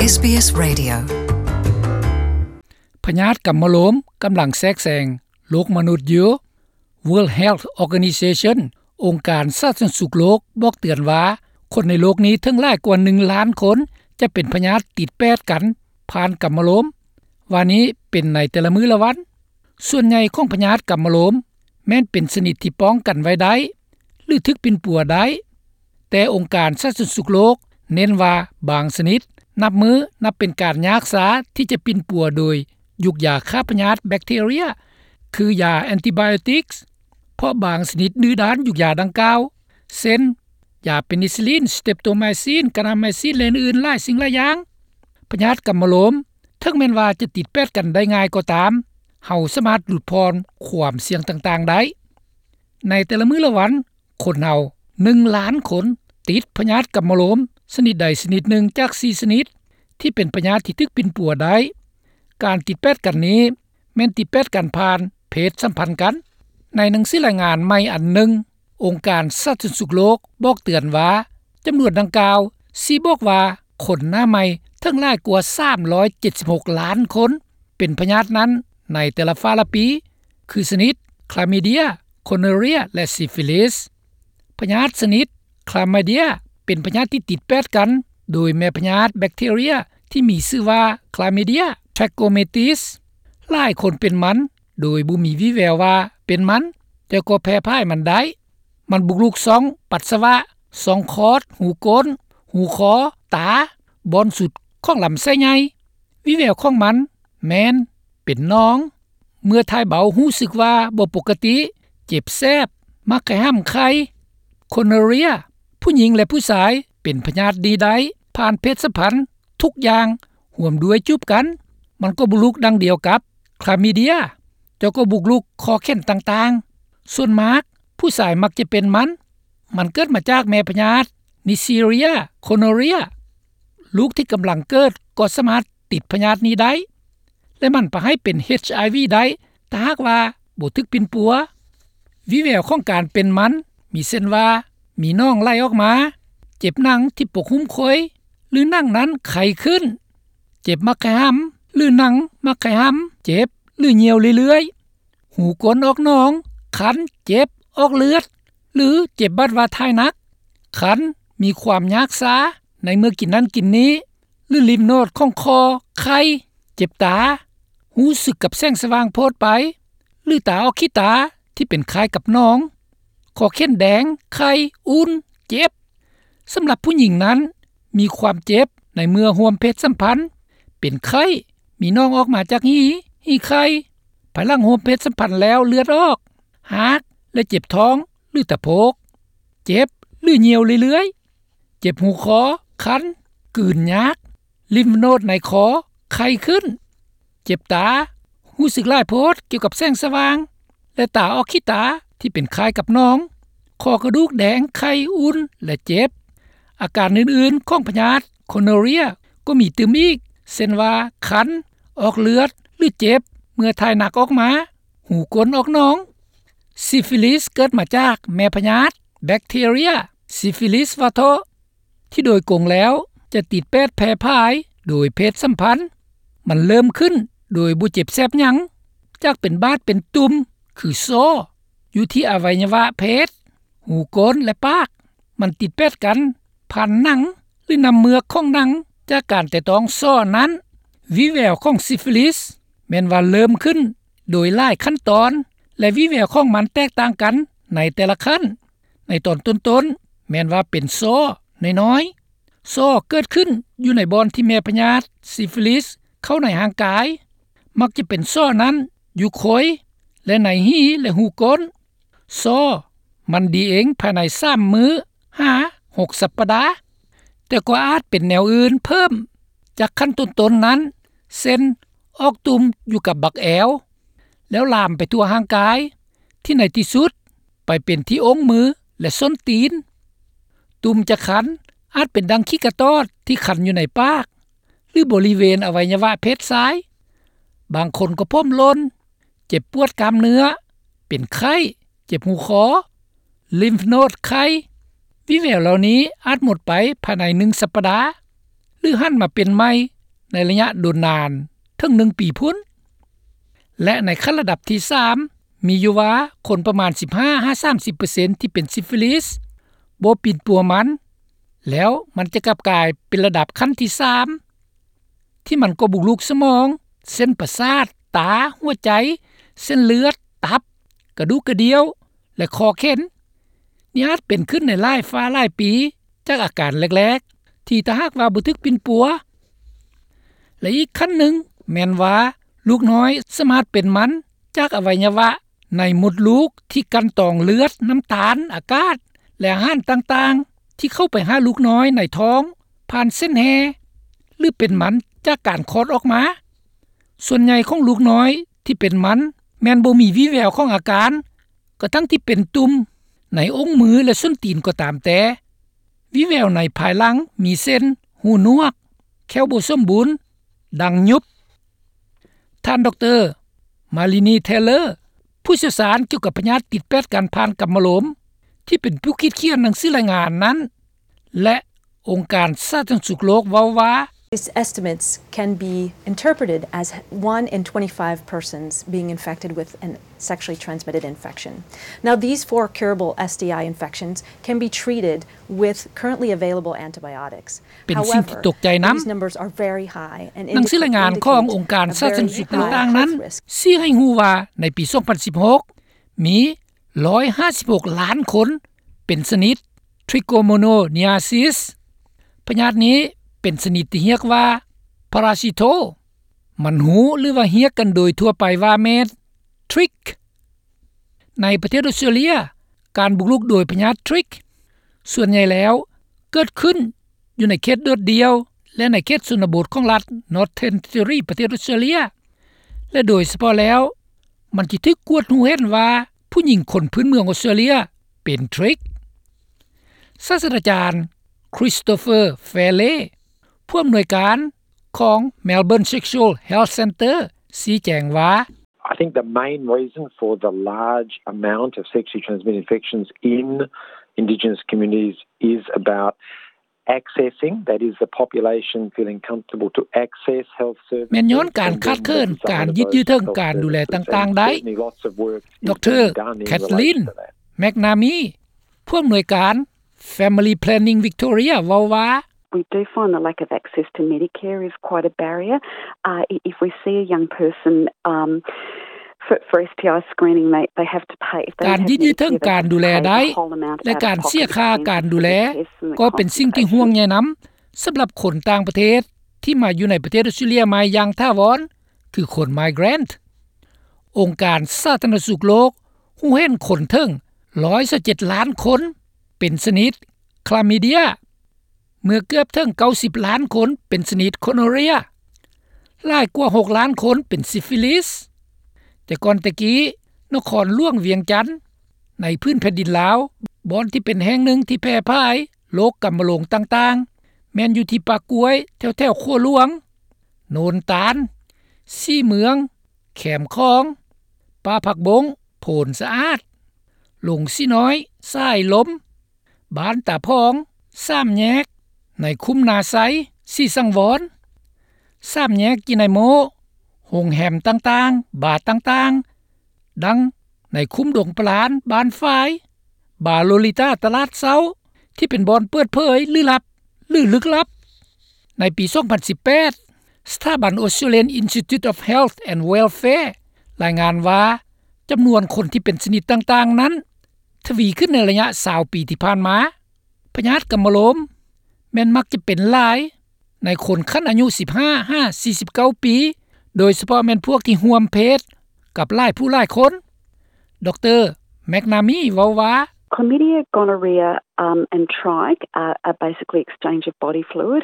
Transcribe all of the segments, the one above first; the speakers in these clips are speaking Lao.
ເອສບີເອສ Radio. ພະຍາດກຳມະໂລມກຳລັງແຊກແຊງໂລກມະນຸດຢູ່. World Health Organization ອົງການສາທາລະນະສຸກໂລກບອກເຕືອນວ່າ ຄົນໃນໂລກນີ້ເຖິງຫຼາຍກວ່າໜຶ່ງລ້ານຄົນຈະເປັນພະຍາດຕິດແປດກັນຜ່ານກຳມະໂລມ ວ່ານີ້ເປັນໃນແຕ່ລະມື້ລະວັນ. ສ່ວນໃຫຍ່ຂອງພະຍາດກຳມະໂລມແມ່ນເປັນຊະນິດທີ່ປ້ອງກັນໄວ້ໄດ້ ຫຼື ຖືກປິ່ນປົວໄດ້, ແຕ່ອົງການສາທາລະນະສຸກໂລກເນັ້ນວ່າບາງຊະນິດນັບມື້ນັບເປັນການຍາກຊາທີ່ຈະປິ່ນປົວໂດຍຢຸກຢາຂ້າພະຍາດແບັກທີເຣຍ ຄືຢາແອນຕິບາໂອຕິກ ເພາະບາງຊະນິດດື້ດ້ານຢຸກຢາດັ່ງກ່າວ ເຊັ່ນ ຢາເປນິຊິລິນ, ສະເຕັບໂຕໄມຊິນ, ການາໄມຊິນ ແລະ ອື່ນໆຫຼາຍສິ່ງຫຼາຍຢ່າງ. ພະຍາດກຳມະໂລມ ເຖິງແມ່ນວ່າຈະຕິດແປດກັນໄດ້ງ່າຍກໍຕາມ, ເຮົາສາມາດຫຼຸດຜ່ອນຄວາມສ່ຽງຕ່າງໆໄດ້. ໃນແຕ່ລະມື້ລະວັນ, ຄົນເຮົາໜຶ່ງລ້ານຄົນຕິດພະຍາດກຳມະໂລມຊະນິດໃດຊະນິດໜຶ່ງຈາກສີ່ຊະນິດ ທີ່ເປັນພະຍາດທີ່ຖືກປິ່ນປົວໄດ້. ການຕິດແປດກັນນີ້ແມ່ນຕິດແປດກັນຜ່ານເພດສຳພັນກັນ. ໃນໜັງສືລາຍງານໃໝ່ອັນໜຶ່ງ, ອົງການສາທາລະນະສຸກໂລກບອກເຕືອນວ່າ ຈຳນວນດັ່ງກ່າວຊີ້ບອກວ່າຄົນໜ້າໃໝ່ເຖິງຫຼາຍກວ່າສາມຮ້ອຍເຈັດສິບຫົກລ້ານຄົນເປັນພະຍາດນັ້ນໃນແຕ່ລະຟ້າລະປີ ຄືຊະນິດຄລາມີເດຍ, ໂຄໂນເຣຍ ແລະ ຊີຟິລິສ. ພະຍາດຊະນິດຄລາມີເດຍເປັນພະຍາດທີ່ຕິດແປດກັນໂດຍແມ່ພະຍາດແບັກທີເຣຍທີ່ມີຊື່ວ່າ Chlamydia trachomatis. ຫຼາຍຄົນເປັນມັນໂດຍບໍ່ມີວີ່ແວວວ່າເປັນມັນ, ແຕ່ກໍແຜ່ພາຍມັນໄດ້. ມັນບຸກລຸກຊ່ອງປັດສະວະ, ຊ່ອງຄອດ, ຫູກົ້ນ, ຫູຄໍ, ຕາ, ບ່ອນສຸດຂອງລຳໄສ້ໃຫຍ່. ວີ່ແວວຂອງມັນແມ່ນເປັນໜອງ, ເມື່ອຖ່າຍເບົາຮູ້ສຶກວ່າບໍ່ປົກກະຕິ, ເຈັບແສບ, ມັກໄຄຫຳໄຄ. ໂຄໂນເຣຍ, ຜູ້ຍິງ ແລະ ຜູ້ຊາຍເປັນພະຍາດນີ້ໄດ້ຜ່ານເພດສຳພັນທຸກຢ່າງ ຮ່ວມດ້ວຍຈູບກັນ. ມັນກໍບຸກລຸກດັ່ງດຽວກັບຄລາມີເດຍ, ແຕ່ກໍບຸກລຸກຂໍ້ແຂນຕ່າງໆ. ສ່ວນມາກຜູ້ຊາຍມັກຈະເປັນມັນ. ມັນເກີດມາຈາກແມ່ພະຍາດ Neisseria gonorrhoeae. ລູກທີ່ກຳລັງເກີດກໍສາມາດຕິດພະຍາດນີ້ໄດ້ ແລະ ມັນພາໃຫ້ເປັນ ເອດເອັດໄອວີ ໄດ້ ຖ້າຫາກວ່າບໍ່ຖືກປິ່ນປົວ. ວີ່ແວວຂອງການເປັນມັນມີເຊັ່ນວ່າ ມີໜອງໄຫຼອອກມາ, ເຈັບໜັງທີ່ປົກຫຸ້ມຂ້ອຍ ຫຼື ໜັງນັ້ນໄຄຂຶ້ນ, ເຈັບມັກໄຄຫຳ ຫຼື ໜັງມັກໄຄຫຳເຈັບ ຫຼື ຍ່ຽວເລື້ອຍໆ, ຫູກົ້ນອອກໜອງ, ຄັນ, ເຈັບ, ອອກເລືອດ ຫຼື ເຈັບບາດວ່າຖ່າຍໜັກ, ຄັນ, ມີຄວາມຍາກຊາໃນເມື່ອກິນນັ້ນກິນນີ້ ຫຼື ລິມໂນດຂອງຄໍ, ໄຂ້, ເຈັບຕາ, ຮູ້ສຶກກັບແສງສະຫວ່າງໂພດໄປ ຫຼື ຕາອອກຂີ້ຕາທີ່ເປັນຄ້າຍກັບໜອງ, ຄໍແຂນແດງ, ໄຂ້, ອຸ່ນ, ເຈັບ. ສຳລັບຜູ້ຍິງນັ້ນ ມີຄວາມເຈັບໃນເມື່ອຮ່ວມເພດສຳພັນ, ເປັນໄຂ້, ມີໜອງອອກມາຈາກຮີ, ຮີໄຂ່, ພາຍຫຼັງຮ່ວມເພດສຳພັນແລ້ວເລືອດອອກ, ຮາກ ແລະ ເຈັບທ້ອງ ຫຼື ຕະໂພກ, ເຈັບ ຫຼື ຍ່ຽວເລື້ອຍໆ, ເຈັບຫູຄໍ, ຄັນ, ກືນຍາກ, ລິມໂນດໃນຄໍໄຄຂຶ້ນ, ເຈັບຕາ, ຮູ້ສຶກຫຼາຍໂພດກ່ຽວກັບແສງສະຫວ່າງ ແລະ ຕາອອກຂີ້ຕາທີ່ເປັນຄ້າຍກັບໜອງ, ຂໍ້ກະດູກແດງ, ໄຂ້, ອຸ່ນ ແລະ ເຈັບ. ອາການອື່ນໆຂອງພະຍາດໂຄໂນເຣຍກໍມີຕື່ມອີກ ເຊັ່ນວ່າ ຄັນ, ອອກເລືອດ ຫຼື ເຈັບເມື່ອຖ່າຍໜັກອອກມາ, ຫູກົ້ນອອກໜອງ. ຊີຟິລິສເກີດມາຈາກແມ່ພະຍາດແບັກທີເຣຍ ຊີຟິລິສວາໂທ ທີ່ໂດຍກົງແລ້ວຈະຕິດແປດແຜ່ພາຍໂດຍເພດສຳພັນ. ມັນເລີ່ມຂຶ້ນໂດຍບໍ່ເຈັບແສບຫຍັງ, ຈາກເປັນບາດເປັນຕຸ່ມ ຄືສໍ້ ຢູ່ທີ່ອະໄວຍະວະເພດ, ຫູກົ້ນ ແລະ ປາກ. ມັນຕິດແປດກັນຜ່ານໜັງ ຫຼື ນ້ຳເມືອກຂອງໜັງ ຈາກການແຕະຕ້ອງສໍ້ນັ້ນ. ວີ່ແວວຂອງຊີຟິລິສແມ່ນວ່າເລີ່ມຂຶ້ນໂດຍຫຼາຍຂັ້ນຕອນ ແລະ ວີ່ແວວຂອງມັນແຕກຕ່າງກັນໃນແຕ່ລະຂັ້ນ. ໃນຕອນຕົ້ນໆ ແມ່ນວ່າເປັນສໍ້ນ້ອຍໆ. ສໍ້ເກີດຂຶ້ນຢູ່ໃນບ່ອນທີ່ແມ່ພະຍາດຊີຟິລິສເຂົ້າໃນຮ່າງກາຍ, ມັກຈະເປັນສໍ້ນັ້ນຢູ່ໂຄຍ ແລະ ໃນຮີ ແລະ ຫູກົ້ນ. ສໍ້ມັນດີເອງພາຍໃນສາມມື້ຫາຫົກສັບປະດາ, ແຕ່ກໍອາດເປັນແນວອື່ນເພີ່ມຈາກຂັ້ນຕົ້ນໆນັ້ນ, ເຊັ່ນ ອອກຕຸ່ມຢູ່ກັບບັກແອວ ແລ້ວລາມໄປທົ່ວຮ່າງກາຍ, ທີ່ໃນທີ່ສຸດໄປເປັນທີ່ອົງມື ແລະ ສົ້ນຕີນ. ຕຸ່ມຈະຄັນອາດເປັນດັ່ງຂີ້ກະຕອດທີ່ຄັນຢູ່ໃນປາກ ຫຼື ບໍລິເວນອະໄວຍະວະເພດຊາຍ. ບາງຄົນກໍຜົມຫຼົ່ນ, ເຈັບປວດກ້າມເນື້ອ, ເປັນໄຂ້, ເຈັບຫູຄໍ, ລິມໂນດໄຄ. ວິແວວເຫຼົ່ານີ້ອາດໝົດໄປພາຍໃນໜຶ່ງສັບປະດາ ຫຼື ຫັນມາເປັນໃໝ່ ໃນໄລຍະດົນນານເຖິງໜຶ່ງປີພຸ້ນ ແລະ ໃນຂັ້ນລະດັບທີສາມ ມີຢູ່ວ່າຄົນປະມານສິບຫ້າຫາສາມສິບເປີເຊັນ ທີ່ເປັນຊິຟິລິສ ບໍ່ປິ່ນປົວມັນ ແລ້ວມັນຈະກັບກາຍເປັນລະດັບຂັ້ນທີສາມ ທີ່ມັນກໍບຸກລຸກສະໝອງ, ເສັ້ນປະສາດ, ຕາ, ຫົວໃຈ, ເສັ້ນເລືອດ, ຕັບ, ກະດູກກະດ່ຽວ ແລະ ຂໍ້ເຂັນ. ນີ້ອາດເປັນຂຶ້ນໃນຫຼາຍຟ້າຫຼາຍປີ ຈາກອາການແລກໆ ທີ່ຖ້າຫາກວ່າບໍ່ຖືກປິ່ນປົວ. ແລະ ອີກຂັ້ນໜຶ່ງແມ່ນວ່າ ລູກນ້ອຍສາມາດເປັນມັນຈາກອະໄວຍະວະໃນມົດລູກທີ່ກັ່ນຕອງເລືອດ, ນ້ຳຕານ, ອາກາດ ແລະ ອາຫານຕ່າງໆ ທີ່ເຂົ້າໄປຫາລູກນ້ອຍໃນທ້ອງຜ່ານເສັ້ນແຮ່ ຫຼື ເປັນມັນຈາກການຄອດອອກມາ. ສ່ວນໃຫຍ່ຂອງລູກນ້ອຍທີ່ເປັນມັນແມ່ນບໍ່ມີວີ່ແວວຂອງອາການ ກະທັ່ງທີ່ເປັນຕຸ່ມໃນອົງມື ແລະ ສົ້ນຕີນກໍຕາມແຕ່. ວີ່ແວວໃນພາຍຫຼັງມີເຊັ່ນ ຫູໜວກ, ແຂ້ວບໍ່ສົມບູນ, ດັງຍຸບ. ທ່ານ ດຣ. ມາລີນີ ເທເລີ ຜູ້ຊ່ຽວຊານກ່ຽວກັບພະຍາດຕິດແປດກັນຜ່ານກຳມະໂລມ ທີ່ເປັນຜູ້ຄິດຂຽນໜັງສືລາຍງານນັ້ນ ແລະ ອົງການສາທາລະນະສຸກໂລກເວົ້າວ່າ These estimates can be interpreted as one in twenty-five persons being infected with a sexually transmitted infection. Now, these four curable S T I infections can be treated with currently available antibiotics. ເປັນສິ່ງທີ່ຕົກໃຈນຳ. However, these numbers are very high and ໜັງສືລາຍງານຂອງອົງການສາທາລະນະສຸກຕ່າງໆນັ້ນ ຊີ້ໃຫ້ຮູ້ວ່າໃນປີສອງພັນສິບຫົກ ມີຮ້ອຍຫ້າສິບຫົກລ້ານຄົນເປັນຊະນິດ Trichomononeasis. ພະຍາດນີ້ເປັນຊະນິດທີ່ຮຽກວ່າ Parasito. ມັນຮູ້ ຫຼືວ່າຮຽກກັນໂດຍທົ່ວໄປວ່າແມ່ນ Trich. ໃນປະເທດອອສເຕຣເລັຍ ການບຸກລຸກໂດຍພະຍາດ Trich ສ່ວນໃຫຍ່ແລ້ວເກີດຂຶ້ນຢູ່ໃນເຂດໂດດດ່ຽວ ແລະ ໃນເຂດຊົນນະບົດຂອງລັດ Northern Territory ປະເທດອອສເຕຣເລັຍ ແລະ ໂດຍສະເພາະແລ້ວ ມັນຈະຖືກກວດຮູ້ເຫັນວ່າຜູ້ຍິງຄົນພື້ນເມືອງອອສເຕຣເລັຍເປັນ Trich. ສາດສະດາຈານ Christopher Fairley ຜູ້ອຳນວຍການຂອງ Melbourne Sexual Health Centre ຊີ້ແຈງວ່າ I think the main reason for the large amount of sexually transmitted infections in Indigenous communities is about accessing, that is, the population feeling comfortable to access health services. ແມ່ນຍ້ອນການຂາດເຂີນການຍືດເຍື້ອເຖິງການດູແລຕ່າງໆໄດ້. ດຣ. Kathleen McNamee ຜູ້ອຳນວຍການ Family Planning Victoria ເວົ້າວ່າ We do find the lack of access to Medicare is quite a barrier. Uh, if we see a young person, um, for, for S T I screening, they, they have to pay. ການຍືດເຍື້ອເຖິງການດູແລໄດ້ ແລະ ການເສຍຄ່າການດູແລ ກໍເປັນສິ່ງທີ່ຫ່ວງໃຍນຳ ສຳລັບຄົນຕ່າງປະເທດທີ່ມາຢູ່ໃນປະເທດອອສເຕຣເລັຍໃໝ່ຢ່າງຖາວອນ ຄືຄົນ migrant. ອົງການສາທາລະນະສຸກໂລກຮູ້ເຫັນຄົນເຖິງຮ້ອຍຊາວເຈັດລ້ານຄົນເປັນຊະນິດ Chlamydia, ເມື່ອເກືອບເຖິງເກົ້າສິບລ້ານຄົນເປັນຊະນິດ Gonorrhea, ຫຼາຍກວ່າຫົກລ້ານຄົນເປັນ Syphilis. ແຕ່ກ່ອນແຕ່ກີ້ ນະຄອນຫຼວງວຽງຈັນ ໃນພື້ນແຜ່ນດິນລາວ ບ່ອນທີ່ເປັນແຫ່ງໜຶ່ງທີ່ແຜ່ຜາຍໂລກກຳມະໂລງຕ່າງໆ ແມ່ນຢູ່ທີ່ປ່າກ້ວຍ ແຖວໆຂົວຫຼວງ, ໂນນຕານ, ສີເມືອງ, ແຄມຂອງ, ປ່າຜັກບົ້ງ, ໂພນສະອາດ, ລົງສີນ້ອຍ, ສາຍລົມ, ບ້ານຕາພອງ, ສາມແຍກ, ໃນຄຸ້ມນາໄຊ, ສີສັງວອນ, ສາມແຍກຈີໄນໂມ, ໂຮງແຮມຕ່າງໆ, ບາຕ່າງໆ, ດັ່ງໃນຄຸ້ມດົງປະລານ, ບ້ານຝາຍ, ບາໂລລິຕາ, ຕະຫຼາດເຊົ້າ ທີ່ເປັນບ່ອນເປີດເຜີຍ ຫຼື ລັບ ຫຼື ລຶກລັບ. ໃນປີສອງພັນສິບແປດ ສະຖາບັນ Australian Institute of Health and Welfare ລາຍງານວ່າ ຈຳນວນຄົນທີ່ເປັນຊະນິດຕ່າງໆນັ້ນ ທະວີຂຶ້ນໃນໄລຍະຊາວປີທີ່ຜ່ານມາ. ພະຍາດກຳມະໂລມແມ່ນມັກຈະເປັນຫຼາຍໃນຄົນຂັ້ນອາຍຸສິບຫ້າຫາສີ່ສິບເກົ້າປີ, ໂດຍສະເພາະແມ່ນພວກທີ່ຮ່ວມເພດກັບຫຼາຍຜູ້ຫຼາຍຄົນ. ດຣ. McNamee ເວົ້າວ່າ Chlamydia, gonorrhea, um, and trich are, are basically exchange of body fluid,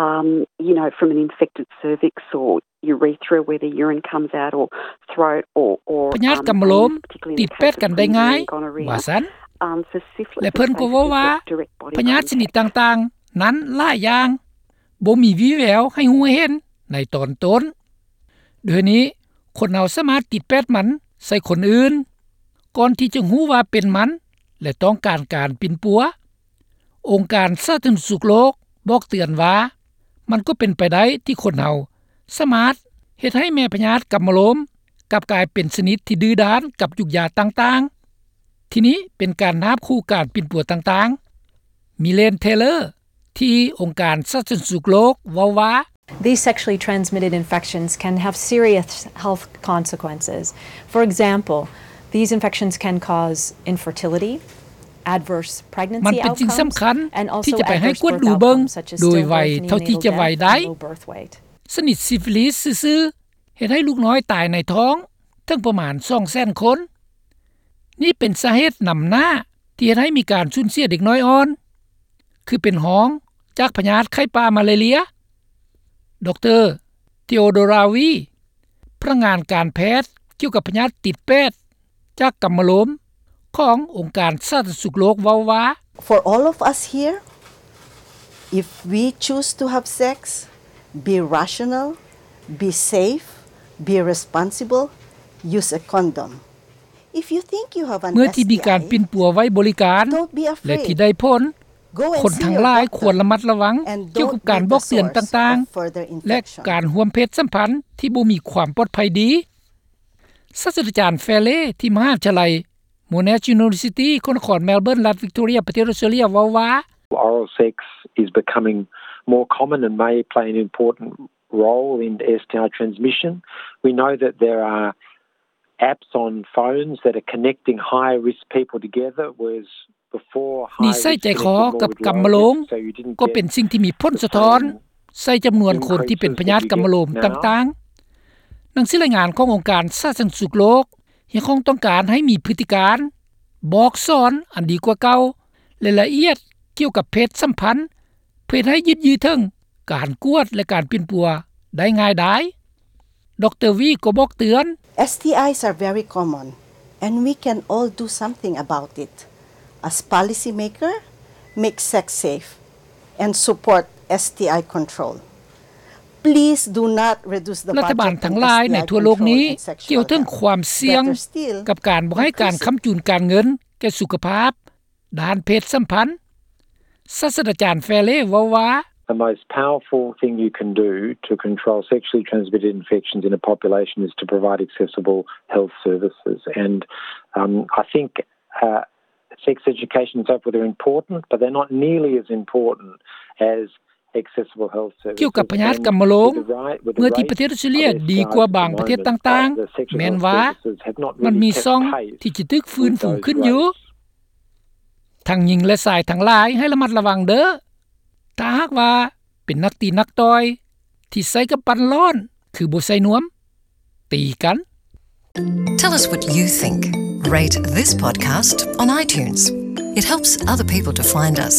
um, you know, from an infected cervix or urethra where the urine comes out or throat or, or, ພະຍາດກຳມະໂລມຕິດແປດກັນໄດ້ງ່າຍ ວ່າຊັ້ນ ແລະ ເພິ່ນກໍເວົ້າວ່າ ພະຍາດຊະນິດຕ່າງໆນັ້ນຫຼາຍຢ່າງ ບໍ່ມີວີ່ແວວໃຫ້ຮູ້ເຫັນໃນຕອນຕົ້ນ. ໂດຍນີ້ ຄົນເຮົາສາມາດຕິດແປດມັນໃສ່ຄົນອື່ນ ກ່ອນທີ່ຈະຮູ້ວ່າເປັນມັນ ແລະ ຕ້ອງການການປິ່ນປົວ. ອົງການສາທາລະນະສຸກໂລກບອກເຕືອນວ່າ ມັນກໍເປັນໄປໄດ້ທີ່ຄົນເຮົາ ສາມາດເຮັດໃຫ້ແມ່ພະຍາດກຳມະໂລມກັບກາຍເປັນຊະນິດທີ່ດື້ດ້ານກັບຢູກຢາຕ່າງໆ. ທີນີ້ເປັນການນາບຄູ່ການປິ່ນປົວຕ່າງໆ. ມິເລນ ເທເລີ ທີ່ອົງການສາທາລະນະສຸກໂລກເວົ້າວ່າ These sexually transmitted infections can have serious health consequences. For example, these infections can cause infertility, adverse pregnancy outcomes, and also adverse birth outcomes, such as stillbirth, neonatal death, and low birth weight. ຊະນິດຊີຟິລິສຊື່ໆ ເຮັດໃຫ້ລູກນ້ອຍຕາຍໃນທ້ອງເຖິງປະມານສອງແສນຄົນ. ນີ້ເປັນສາເຫດນຳໜ້າທີ່ເຮັດໃຫ້ມີການສູນເສຍເດັກນ້ອຍອ່ອນ ຄືເປັນຮອງຈາກພະຍາດໄຂ້ປ່າມາລາເຣຍ. ດຣ. ເທໂອໂດຣາ ວີ ພະນັກງານການແພດກ່ຽວກັບພະຍາດຕິດແປດ ຈາກກຳມະໂລມຂອງອົງການສາທາລະນະສຸກໂລກເວົ້າວ່າ For all of us here, if we choose to have sex, be rational, be safe, be responsible, use a condom. If you think you have an ເມື່ອທີ່ມີການປິ່ນປົວໄວ້ບໍລິການ STI, don't be afraid. ແລະທີ່ໄດ້ຜົນ Go and see your doctor and don't be the source of further infection. ຄົນທັງຫຼາຍຄວນລະມັດລະວັງກ່ຽວກັບການບອກເຕືອນຕ່າງໆ ແລະການຮ່ວມເພດສຳພັນທີ່ບໍ່ມີຄວາມປອດໄພດີ. ສາດສະດາຈານ ແຟເລ ທີ່ມະຫາວິທະຍາໄລ Monash University ແຂວງນະຄອນແມລເບີນ ລັດວິກຕໍເຣຍ ປະເທດອອສເຕຣເລັຽ ເວົ້າວ່າ Oral sex is becoming more common and may play an important role in STI transmission. We know that there are apps on phones that are connecting high risk people together, whereas before, high risk connected more with low risk. ນິໄສໃຈຄໍກັບກຳມະໂລມກໍເປັນສິ່ງທີ່ມີຜົນສະທ້ອນໃສ່ຈຳນວນຄົນທີ່ເປັນພະຍາດກຳມະໂລມຕ່າງໆ. ໜັງສືລາຍງານຂອງອົງການສາທາລະນະສຸກໂລກຮຽກຮ້ອງຕ້ອງການໃຫ້ມີພຶດຕິການບອກສອນອັນດີກວ່າເກົ່າ ແລະ ລະອຽດກ່ຽວກັບເພດສຳພັນ ເພື່ອເຮັດໃຫ້ຍືດເຖິງການກວດ ແລະ ການປິ່ນປົວໄດ້ງ່າຍດາຍ. ດຣ. ວີ ກໍບອກເຕືອນ STIs are very common and we can all do something about it. As policy maker, make sex safe and support STI control. Please do not reduce the budget to STI control and sexual health. ລັດຖະບານທັງຫຼາຍໃນທົ່ວໂລກນີ້ກ່າວເຖິງຄວາມສ່ຽງກັບການບໍ່ໃຫ້ການຄ້ຳຈູນການເງິນແກ່ສຸຂະພາບ ດ້ານເພດສຳພັນ. ສາດສະດາຈານ ແຟເລ ເວົ້າວ່າ The most powerful thing you can do to control sexually transmitted infections in a population is to provide accessible health services. And, um, I think, uh, sex education and so forth are important, but they're not nearly as important as accessible health services. ກ່ຽວກັບພະຍາດກຳມະໂລມ ເມື່ອທີ່ປະເທດອອສເຕຣເລັຽດີກວ່າບາງປະເທດຕ່າງໆ ແມ່ນວ່າມັນມີຊ່ອງທີ່ຈະຖືກຟື້ນຟູຂຶ້ນຢູ່. ທັງຍິງ ແລະ ຊາຍທັງຫຼາຍໃຫ້ລະມັດລະວັງເດີ້. ຖ້າຫາກວ່າເປັນນັກຕີນັກຕ່ອຍທີ່ໃຊ້ກຳປັ້ນຮ້ອນ ຄືບໍ່ໃສ່ນວມ ຕີກັນ. Tell us what you think. Rate this podcast on iTunes. It helps other people to find us.